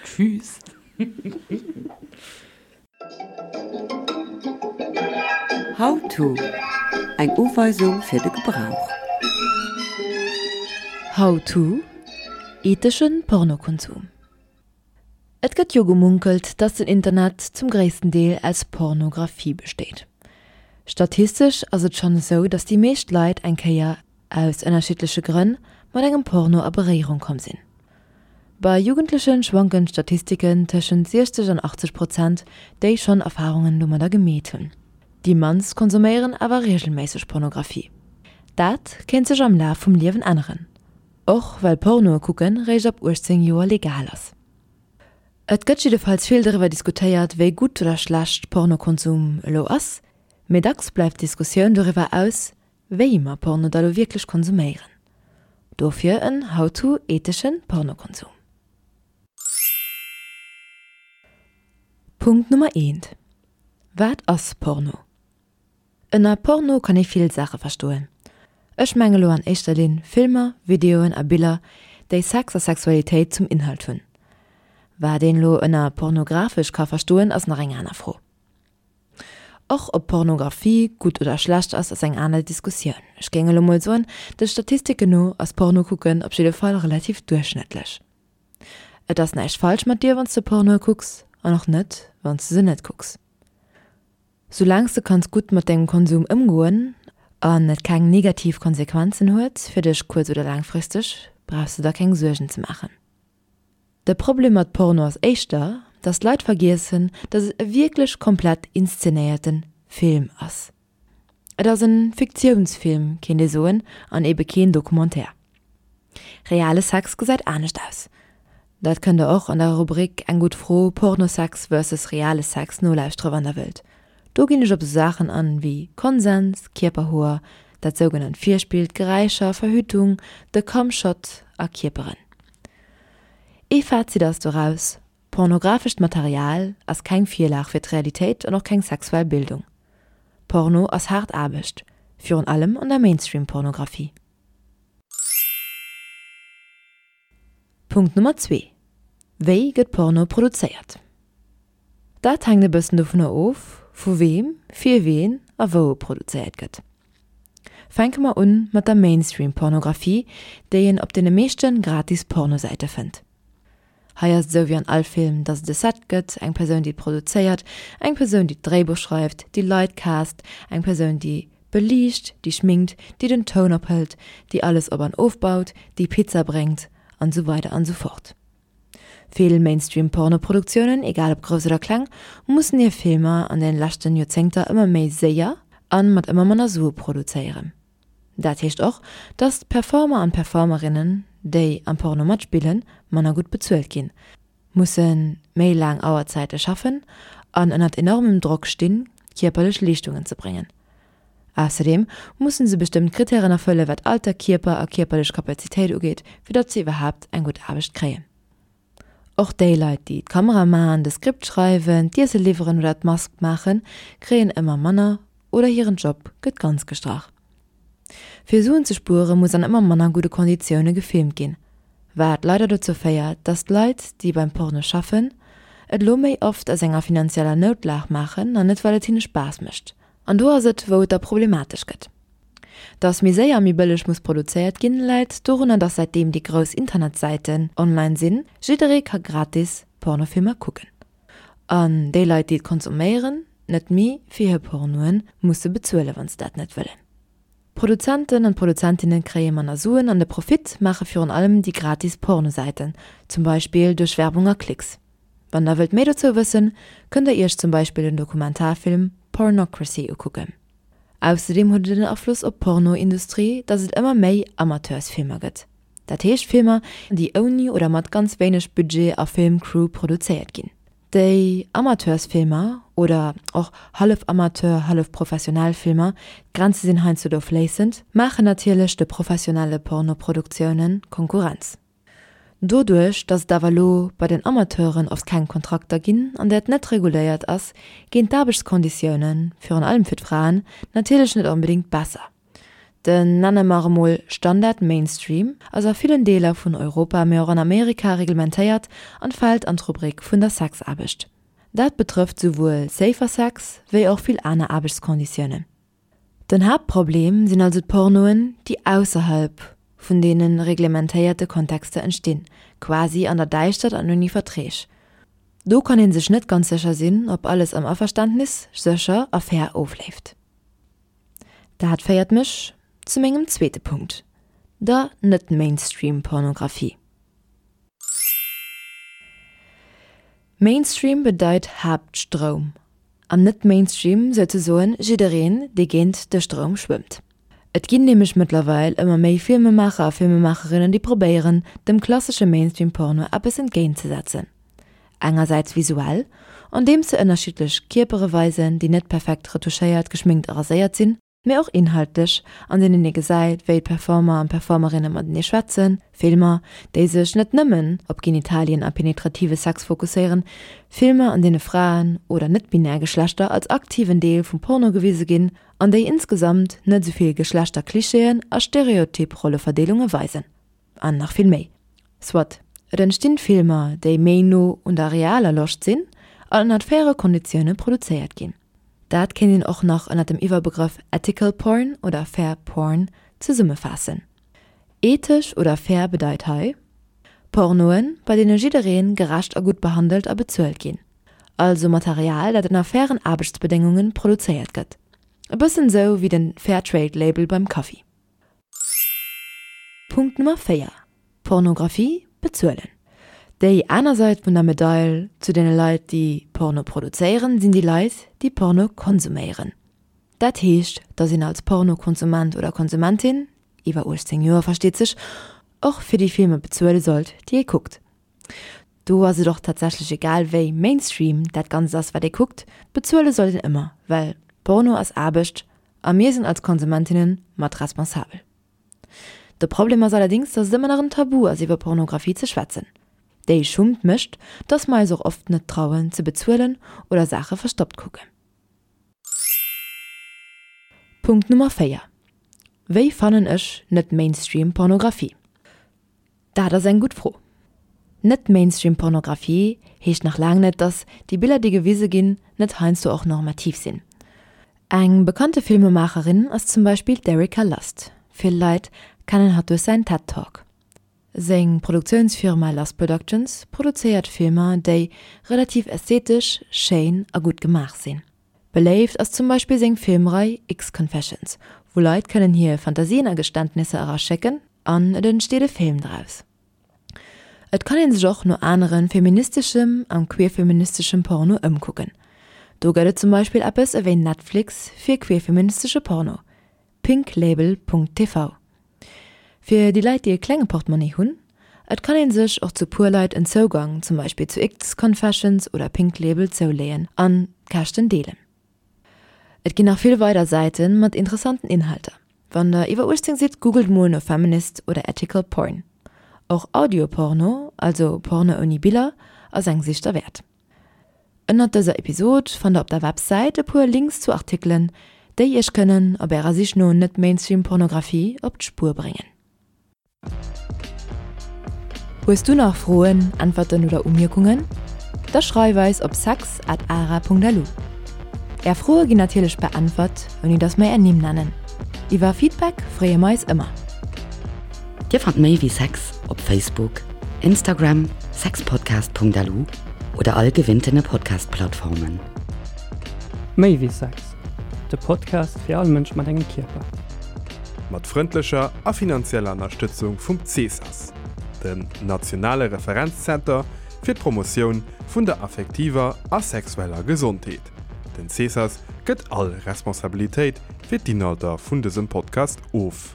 Speaker 1: Tschüss!
Speaker 6: How to, Eng Uweisung fir de Gebrauch.
Speaker 4: How to, Etheschen Pornokonsum. Et gëtt jo gemunkelt, dass den Internet zum gréissten Deel aus Pornographie besteet. Statistesch ass et schonn esou, dass déi meescht Leit eng Kéier, aus ënnerschiddleche Grënn, mat engem Porno a Beréierung komm sinn. Bei Jugendleche schwanken d'Statistiken tëschent 60 an 80 Prozent, déi schonn Erfarungen domadder gemeet hunn. Déi mannst konsuméieren awer reegelméisseg Pornographie. Dat kéint sech am Laf vum Liewen änneren, och well Pornoe kucke réischt ab 18 Joer legal ass. Et gëtt jiddefalls vill doriwwer diskutéiert, wéi gutt oder schlecht Pornokonsum elo ass, mee dacks bleift d'Diskussioun doriwwer aus, wéi mer Porno da lo wierklech konsuméieren. Dofir en How to etheschen Pornokonsum. Punkt Nummer eent, Wat ass Porno? Ënner Porno kann ee vill Saache verstoen. Ech menge lo an éischter Linn Filmer, Videoen a Biller, déi Sex a Sexualitéit zum Inhalt hunn. Wat een lo ënner pornografesch ka verstoen ass nach eng aner Fro. Och ob Pornografie gutt oder schlecht ass, ass eng aner Diskussioun. Ech géing elo mol soen, de Statistiken no ass Porno kucken op jidde Fall relativ duerchschnëttlech. Et ass näischt falsch mat dir wann s de Pornoe kucks an och net wann s de se net kucks. Soulaang s de kanns gutt mat dengem Konsum ëmgoen an et keng negativ Konsequenzen huet fir dech kuerz oder laangfristeg, brauchs de der keng Suergen ze maachen. De Problem mat Porno ass éischter, dass d'Leit vergiessen, dass et e wierklech komplett inszenéierte Film ass. Et ass en Fiktiounsfilm, kéint ee soen, an ebe keen Documentaire. Reale Sex gesäit anescht aus. Dat kënnt der och an der Rubrik Eng gutt Fro, Pornosex versus reale Sex nolauschtere wann der wëllt. Do ginn ech op sou Saachen an wéi Konsens, Kierperhoer, dat sougenannt Virspill, d'Geräischer, Verhütung, de Cumshot a Kierperen. Ee Fazit ass doraus, Pornografescht Material ass keng Virlag fir d'Realitéit an och keng sexuell Bildung. Porno ass haart Aarbecht, virun allem an der Mainstream-Pornografie. Punkt Nummer zwee, Wéi gëtt Porno produzéiert? Dat hänkt e bëssen dovunner of, vu weem, fir ween a wou e produzéiert gëtt. Fänke mer un mat der Mainstream-Pornografie, déi een op deene meeschte gratis Pornosäite fënnt. Hei ass et esou wéi an all Film, dass et e Set gëtt, eng Persoun déi et produzéiert, eng Persoun déi d'Dréibuch schreift, déi Leit cast, eng Persoun déi beliicht, déi schminkt, déi den Toun ophëlt, déi alles op an ofbaut, déi Pizza bréngt an esou weider an esou fort. Vill Mainstream Pornoproduktiounen, egal ob grouss oder kleng, mussen hir Filmer an den leschten Joerzéngter ëmmer méi séier an mat ëmmer manner Sue produzéieren. Dat heescht och, dass d'Performer an d'Performerinnen, déi am Porno matspillen, manner gutt bezuelt ginn, musse méi laang Auerzäite schaffen an ënnert enormem Drock stinn, kierperlech Leeschtungen ze bréngen. Ausserdeem musse se bestëmmt Krittären erfëlle wat Alter, Kierper a kierperlech Kapazitéit ugeet, fir datt se iwwerhaapt eng gutt Aarbecht kréien. Och déi Leit, déi d'Kamera maachen, de Skript schreiwen, d'Iesse liwweren oder d'Mask maachen, kréien ëmmer manner oder hiren Job gëtt ganz gestrach. Fir Suen ze spuere muss an ëmmer manner gudde Konditioune gefilmt ginn, wat leider dozou féiert, datt d'Leit, déi beim Porno schaffen, et elo méi oft aus enger finanzieller Noutlag maachen an net well et hinne Spaass mécht. An do ass et, wou et da problematesch gëtt. Dass méi séier a méi bëlleg muss produzéiert ginn, läit dorunner, dass säitdeem déi grouss Internetsäiten online sinn, jidderee ka gratis Pornofilmer kucken. An déi Leit, déi et konsuméieren, net méi fir hir Pornoe musse bezuelen, wann se dat net wëllen. D'Produzenten an d'Produzentinne kréie manner Suen an de Profit maache virun allem déi gratis Pornosäiten, zum Beispill duerch Werbung a Klicks. Wann der wëllt méi dozou wëssen, kënnt der iech zum Beispill den Dokumentarfilm Pornocracy ukucken. Ausserdeem huet et en Afloss op d'Pornoindustrie, datt et ëmmer méi Amateursfilmer gëtt. Dat heescht Filmer, déi ouni oder mat ganz wéineg Budget a Filmcrew produzéiert ginn. Déi Amateursfilmer, oder och hallef Amateur, hallef professionell Filmer, d'Grenze sinn heiansdo do fléissend, maachen natierlech de professionelle Pornoproduktiounen Konkurrenz. Doduerch, datt et awer elo bei den Amateuren oft keng Kontrakter ginn an dat net reguléiert ass, ginn d'Aarbechtskonditiounen, virun allem fir d'Fraen, natierlech net onbedéngt besser. Den, nenne mer emol, Standard Mainstream ass a villen Deeler vun Europa, mee och an Amerika reglementéiert an fält an d'Rubrik vun der Sexaarbecht. Dat betrëfft souwuel Safer Sex wéi och vill aner Aarbechtskonditiounen. Den Haaptproblem sinn also d'Pornoen, déi ausserhalb vun deene reglementéierte Kontexter entstinn, quasi an der Däischtert an ouni Verträg. Do kann ee sech net ganz sécher sinn, ob alles am Averständnis, sécher a fair ofleeft. Dat féiert mech zu mengem zweete Punkt, der Net-Mainstream-Pornografie. Mainstream bedeit Haaptstroum an net Mainstream souzesoen jiddereen, dee géint de Stroum schwëmmt. Et ginn nämlech mëttlerweil ëmmer méi Filmemaacher a Filmemaacherinnen, déi probéieren, dem klassesche Mainstream-Porno eppes entgéint ze setzen. Engersäits visuell, andeems se ënnerschiddlech Kierpere weisen, déi net perfekt retouchéiert, geschminkt a raséiert sinn, mee och inhaltlech, an deenen ee gesäit, wéi d'Performer an d'Performerinne matenee schwätzen, Filmer, déi sech net nëmmen op Genitalien a penetrative Sex fokusséieren, Filmer, an deene Fraen oder net-binär Geschlechter als aktiven Deel vum Porno gewise ginn an déi insgesamt net esou vill Geschlechterklischeeën a stereotyp Rolleverdeelunge weisen. An nach vill méi. Soit, et entstinn Filmer, déi méi no un der realer Loscht sinn an ënnert faire Konditioune produzéiert ginn. Dat kéint een och nach ënnert dem Iwwerbegrëff Ethical Porn oder Fair Porn zesummefaassen. Ethesch oder fair bedeit hei, Pornoen, bei deene jidderee gerecht a gutt behandelt a bezuelt ginn. Also Material, dat ënner fairen Aarbechtsbedéngunge produzéiert gëtt. E bëssen esou wéi den Fairtrade-Label beim Kaffi. Punkt Nummer 4, Pornographie bezuelen. Déi aner Sait vun der Medail zu deene Leit, déi Porno produzéieren, sinn déi Leit, déi Porno konsuméieren. Dat heescht, dass een als Pornokonsument oder Konsumentin, iwwer 18 Joer versteet sech, och fir déi Filmer bezuele sollt, déi ee kuckt. Do ass et och tatsächlech egal wéi Mainstream dat Ganzt ass wat ee kuckt, bezuele sollt een ëmmer, well Porno ass Aarbecht a mir sinn als Konsumentinnen mat responsabel. De Problem ass allerdéngs, dass et ëmmer nach en Tabu ass iwwer Pornografie ze schwätzen. Déi Schummt mécht, dass mer eis och oft net trauen ze bezuelen oder Saache verstoppt kucken. Punkt Nummer 4, Wéi fannen ech net Mainstream Pornografie? Dat ass eng gutt Fro. Net Mainstream Pornografie heescht nach laang net, dass déi Biller déi gewise ginn, net heiansdo och normativ sinn. Eng bekannte Filmemaacherin ass zum Beispill d'Erika Lust. Vill Leit kennen hatt duerch säin Ted Talk. Seng Produktiounsfirma Lust Productions produzéiert Filmer déi relativ ästhetesch, schéin a gutt gemaach sinn. Beléift ass zum Beispill seng Filmrei X-Confessions, wou Leit kënnen hir Fantasien a Geständnisser eraschécken an et entsteet e Film draus. Et kann een sech och no anere feministeschem an queerfeministeschem Porno ëmkucken. Do gëtt et zum Beispill eppes ewéi Netflix fir queerfeministesche Porno, pinklabel.tv. Fir déi Leit déi e klenge Portmonni hunn, et kann een sech och zu puer Leit en Zougang zum Beispill zu X-Confessions oder Pinklabel zouleeën an d'Käschten deelen. Et ginn nach vill weider Säite mat interessanten Inhalter. Wann der iwwer 18 sidd, googelt mol no Feminist oder Ethical Porn. Och Audio-Porno, also Porno ouni Biller, ass eng Sich derwäert. Ënnert dëser Episod fannt der op der Websäit e puer Links zu Artikelen, déi iech kënnen op ärer Sich no Net-Mainstream-Pornografie op d'Spuer bréngen. Hues du nach Froen, Äntwerten oder Umierkungen? Da schreif eis op sex at ara.lu. Är Froe ginn natierlech beäntwert, ouni dass mer är Nimm nennen. Iwwer Feedback freeë mer eis ëmmer.
Speaker 1: Dir fannt méi wéi Sex op Facebook, Instagram, sexpodcast.lu oder all gewinntene Podcast-Plattformen.
Speaker 7: Méi wéi Sex, de Podcast fir all Mënsch mat engem Kierper.
Speaker 5: Mat frëndlecher a finanzieller Ënnerstëtzung vum CESAS, dem nationale Referenzzenter fir d'Promotioun vun der affektiver a sexueller Gesondheet. Den CESAS gëtt all Responsabilitéit fir d'Inhalter vun dësem Podcast of.